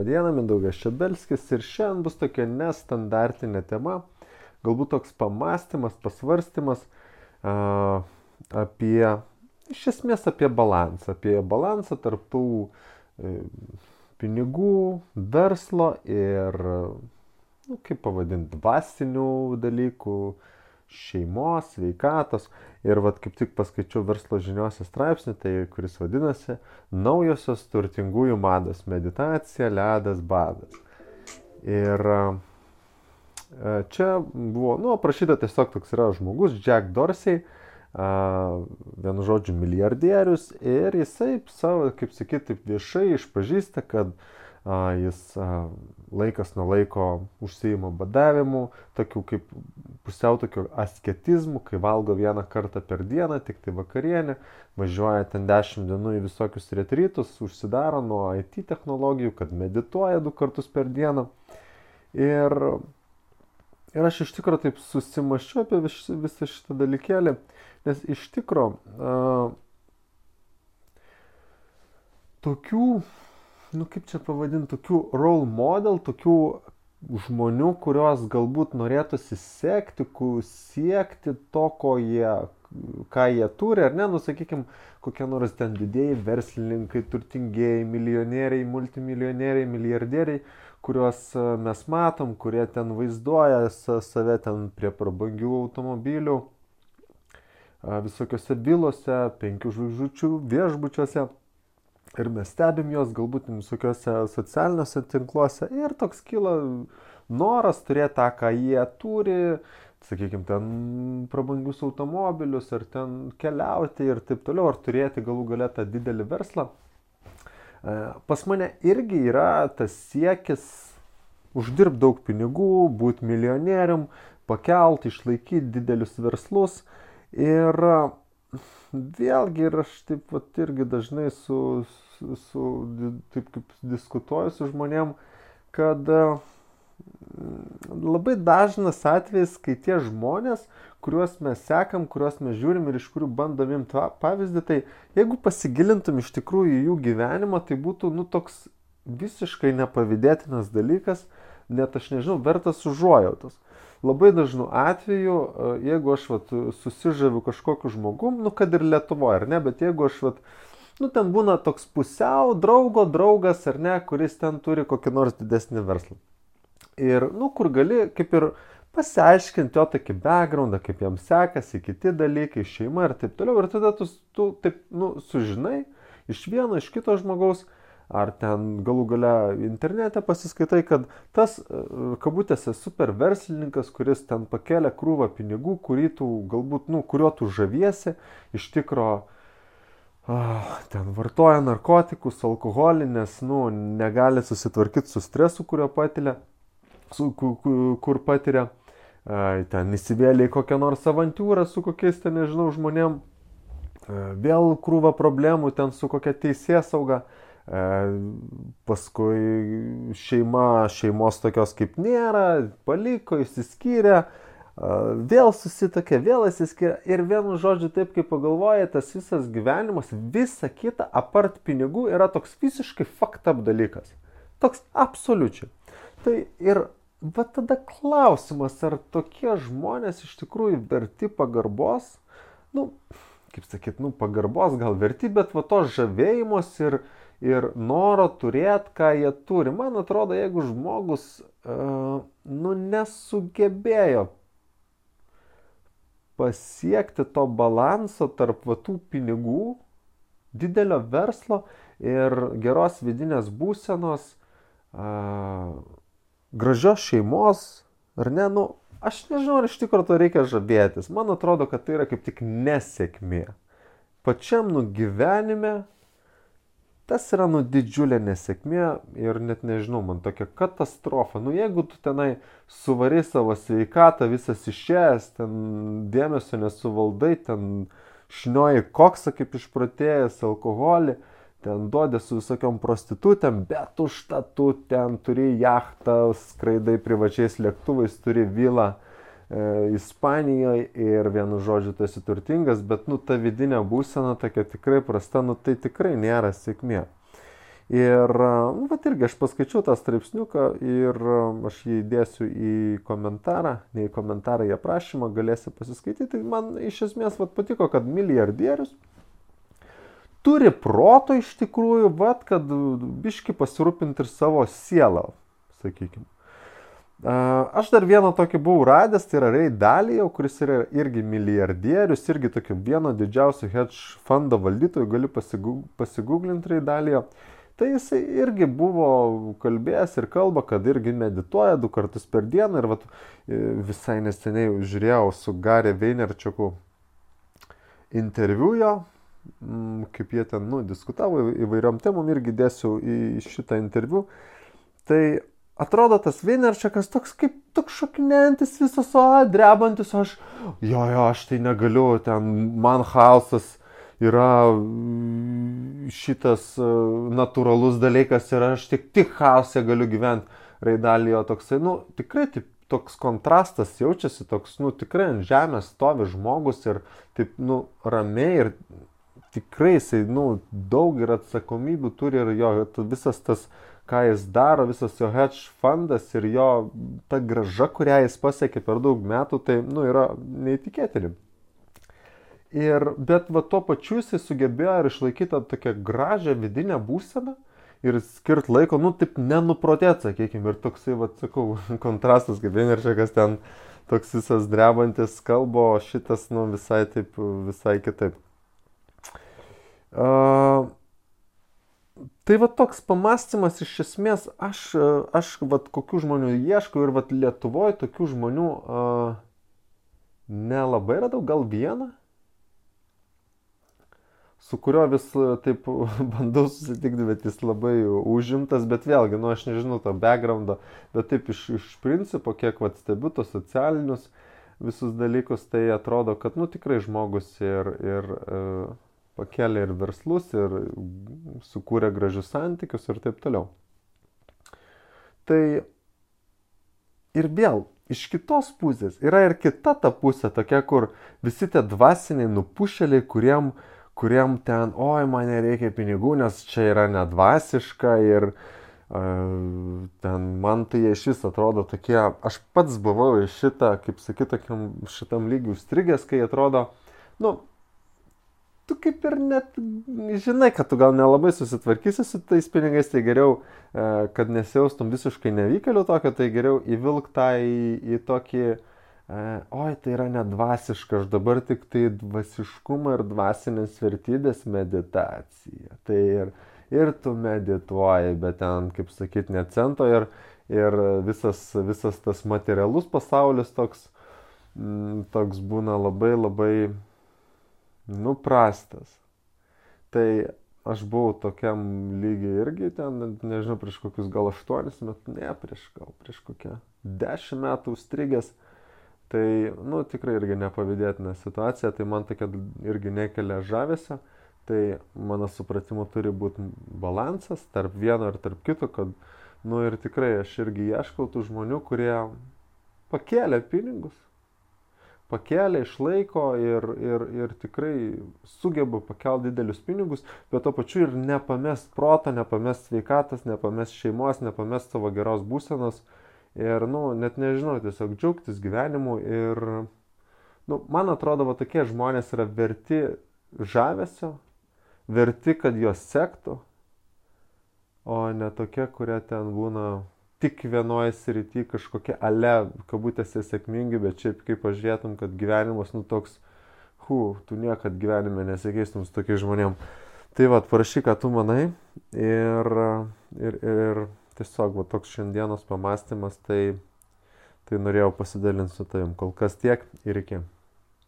Diena, Mindaugas Šebelskis ir šiandien bus tokia nestandartinė tema, galbūt toks pamastymas, pasvarstymas apie, iš esmės apie balansą tarp tų pinigų, verslo ir, kaip pavadinti, dvasinių dalykų, šeimos, sveikatos. Ir kaip tik paskaičiau verslo žiniuose straipsnį, kuris vadinasi Naujosios turtingųjų mados - meditacija, ledas, badas. Ir čia buvo, aprašyta tiesiog toks yra žmogus, Jack Dorsey, vienu žodžiu milijardierius, ir jisai savo, kaip sakyti, taip viešai išpažįsta, kad jis laikas nuo laiko užsiima badavimu, tokiu kaip pusiau tokiu asketizmu, kai valgo vieną kartą per dieną, tik tai vakarienę, važiuoja ten 10 dienų į visokius retrytus, užsidaro nuo IT technologijų, kad medituoja 2 kartus per dieną. Ir aš iš tikrųjų taip susimaščiau apie visą šitą dalykėlį, nes iš tikrųjų tokių, kaip čia pavadinti, tokių role model, tokių žmonių, kuriuos galbūt norėtųsi siekti to, ką jie turi, ar ne, sakykime, kokie nors ten didėjai verslininkai, turtingieji, milijonieriai, multimilijonieriai, milijardieriai, kuriuos mes matom, kurie ten vaizduoja save ten prie prabangių automobilių, visokiose vilose, 5 žvaigždučių viešbučiuose. Ir mes stebim juos galbūt visokiuose socialiniuose tinkluose ir toks kyla noras turėti tą, ką jie turi, sakykime, ten prabangius automobilius, ar ten keliauti ir taip toliau, ar turėti galų gale tą didelį verslą. Pas mane irgi yra tas siekis uždirbti daug pinigų, būti milijonierium, pakelti, išlaikyti didelius verslus. Ir vėlgi, ir aš taip irgi dažnai taip kaip diskutuoju su žmonėm, kad labai dažnas atvejis, kai tie žmonės, kuriuos mes sekam, kuriuos mes žiūrim ir iš kurių bandom imti pavyzdį, tai jeigu pasigilintum iš tikrųjų jų gyvenimą, tai būtų toks visiškai nepavydėtinas dalykas, net aš nežinau, vertas užuojautos. Labai dažnu atveju, jeigu aš susižaviu kažkokiu žmogum, kad ir Lietuvoje, ar ne, bet jeigu aš ten būna toks pusiau draugas, ar ne, kuris ten turi kokį nors didesnį verslą. Ir, kur gali kaip ir pasiaiškinti jo tokį backgroundą, kaip jam sekasi, kiti dalykai, šeima ir taip toliau. Ir tada tu taip, sužinai iš vieno, iš kito žmogaus, ar ten galų gale internete pasiskaitai, kad tas, kabutėse, super verslininkas, kuris ten pakėlė krūvą pinigų, kuriuo tu žaviesi, iš tikro ten vartoja narkotikus, alkoholį, nes negali susitvarkyti su stresu, kur patiria, ten įsivėlė į kokią nors avantūrą su kokiais, ten nežinau, žmonėm, vėl krūva problemų ten su kokia teisėsauga. Paskui šeimos tokios kaip nėra, paliko, išsiskyrė, vėl susitokė, vėl išsiskyrė ir vienu žodžiu taip kaip pagalvoja, tas visas gyvenimas, visa kita apart pinigų yra toks visiškai fucked up dalykas. Toks absoliučiai. Tai ir tada klausimas, ar tokie žmonės iš tikrųjų verti pagarbos, kaip sakyt, pagarbos gal verti, bet tos žavėjimos ir noro turėti, ką jie turi. Man atrodo, jeigu žmogus nesugebėjo pasiekti to balanso tarp tų pinigų, didelio verslo ir geros vidinės būsenos, gražios šeimos, ar ne, aš nežinau, ar iš tikrųjų to reikia žavėtis. Man atrodo, kad tai yra kaip tik nesėkmė. Pačiam gyvenime tas yra didžiulė nesėkmė ir net nežinau, man tokia katastrofa. Jeigu tu tenai suvarai savo sveikatą, visas išėjęs, ten dėmesio nesuvaldai, ten šnioji koksą kaip išprotėjęs, alkoholį, ten duodė su visokiom prostitutėm, bet užtat tu ten turi jachtą, skraidai privačiais lėktuvais, turi vilą Ispanijoje ir vienu žodžiu tu esi turtingas, bet ta vidinė būsena tokia tikrai prasta, tai tikrai nėra sėkmė. Ir, nu, vat irgi aš paskaičiau tą straipsniuką ir aš jį įdėsiu į komentarą, ne į komentarą, į aprašymą, galėsi pasiskaityti. Man iš esmės vat patiko, kad milijardierius turi proto iš tikrųjų, vat, kad biški pasirūpinti ir savo sielą, sakykime. Aš dar vieną tokį buvau radęs, tai yra Ray Dalio, kuris yra irgi milijardierius, irgi tokio vieno didžiausių hedge fondo valdytojų, gali pasigūglinti Ray Dalio. Tai jisai irgi buvo kalbėjęs ir kalba, kad irgi medituoja 2 kartus per dieną ir vat, visai neseniai žiūrėjau su Gary Vaynerchuku interviu jo, kaip jie ten diskutavo įvairiom temom, irgi dėsiu į šitą interviu. Tai atrodo tas Vaynerchukas toks kaip toks šokinėjantis visas, drebantis, aš tai negaliu, ten man chaosas yra šitas natūralus dalykas ir aš tik chaose galiu gyventi. Ray Dalio toksai, tikrai taip, toks kontrastas jaučiasi, toks, tikrai ant žemės stovi žmogus ir taip, ramiai ir tikrai jisai, daug ir atsakomybių turi ir jo visas tas, ką jis daro, visas jo hedge fundas ir jo ta grąža, kurią jis pasiekė per daug metų, tai, yra neįtikėtini. Bet tuo pačiu jisai sugebėjo ir išlaikyti tokią gražią vidinę būseną ir skirt laiko, taip nenuprotėt, sakykime, ir toksai, sakau, kontrastas, kaip Vaynerchukas ten toks visas drebantis kalbo, šitas, visai kitaip. Tai toks pamastymas iš esmės, aš kokių žmonių ieškau ir Lietuvoje tokių žmonių nelabai radau, gal vieną, su kurio vis taip bandau susitikti, bet jis labai užimtas, bet vėlgi, aš nežinau to backgroundo, bet taip iš principo, kiek stebiu tos socialinius visus dalykus, tai atrodo, kad tikrai žmogus ir pakėlė ir verslus, ir sukūrė gražius santykius ir taip toliau. Tai ir vėl, iš kitos pusės, yra ir kita ta pusė, tokia, kur visi tie dvasiniai nupušėliai, kuriem ten, man nereikia pinigų, nes čia yra nedvasiška ir ten man tai iš vis atrodo tokie, aš pats buvau iš šitą, kaip sakyt, šitam lygiui užstrigęs, kai atrodo, tu kaip ir net žinai, kad tu gal nelabai susitvarkysi su tais pinigais, tai geriau, kad nesijaustum visiškai nevykėliu tokio, tai geriau įvilk tą į tokį, tai yra nedvasiška, aš dabar tik tai dvasiškumą ir dvasinės vertybės meditacija. Tai ir tu medituoji, bet ten, kaip sakyt, ne cento ir visas tas materialus pasaulis toks būna labai labai prastas. Tai aš buvau tokiam lygiai irgi ten, nežinau, prieš kokius gal 8 metus, prieš kokią 10 metų užstrigęs. Tai, tikrai irgi nepavydėtina situacija, tai man tokia irgi nekelia žavesio. Tai mano supratimu turi būti balansas tarp vieno ir tarp kito, kad, ir tikrai aš irgi ieškau tų žmonių, kurie pakėlė pinigus, pakėlė, išlaiko ir tikrai sugeba pakelti didelius pinigus, bet to pačiu ir nepamest proto, nepamest sveikatos, nepamest šeimos, nepamest savo geros būsenos. Ir, net nežinau, tiesiog džiaugtis gyvenimu ir, man atrodo, tokie žmonės yra verti žavesio, verti, kad juos sektų, o ne tokie, kurie ten būna tik vienoje srity kažkokie kabutėse sėkmingi, bet šiaip kaip pažiūrėtum, kad gyvenimas, toks, tu niekad gyvenime nesikeistum su tokiais žmonėm. Tai parašyk, ką tu manai ir tiesiog toks šiandienos pamastymas, tai norėjau pasidalinti su tavim. Kol kas tiek ir iki.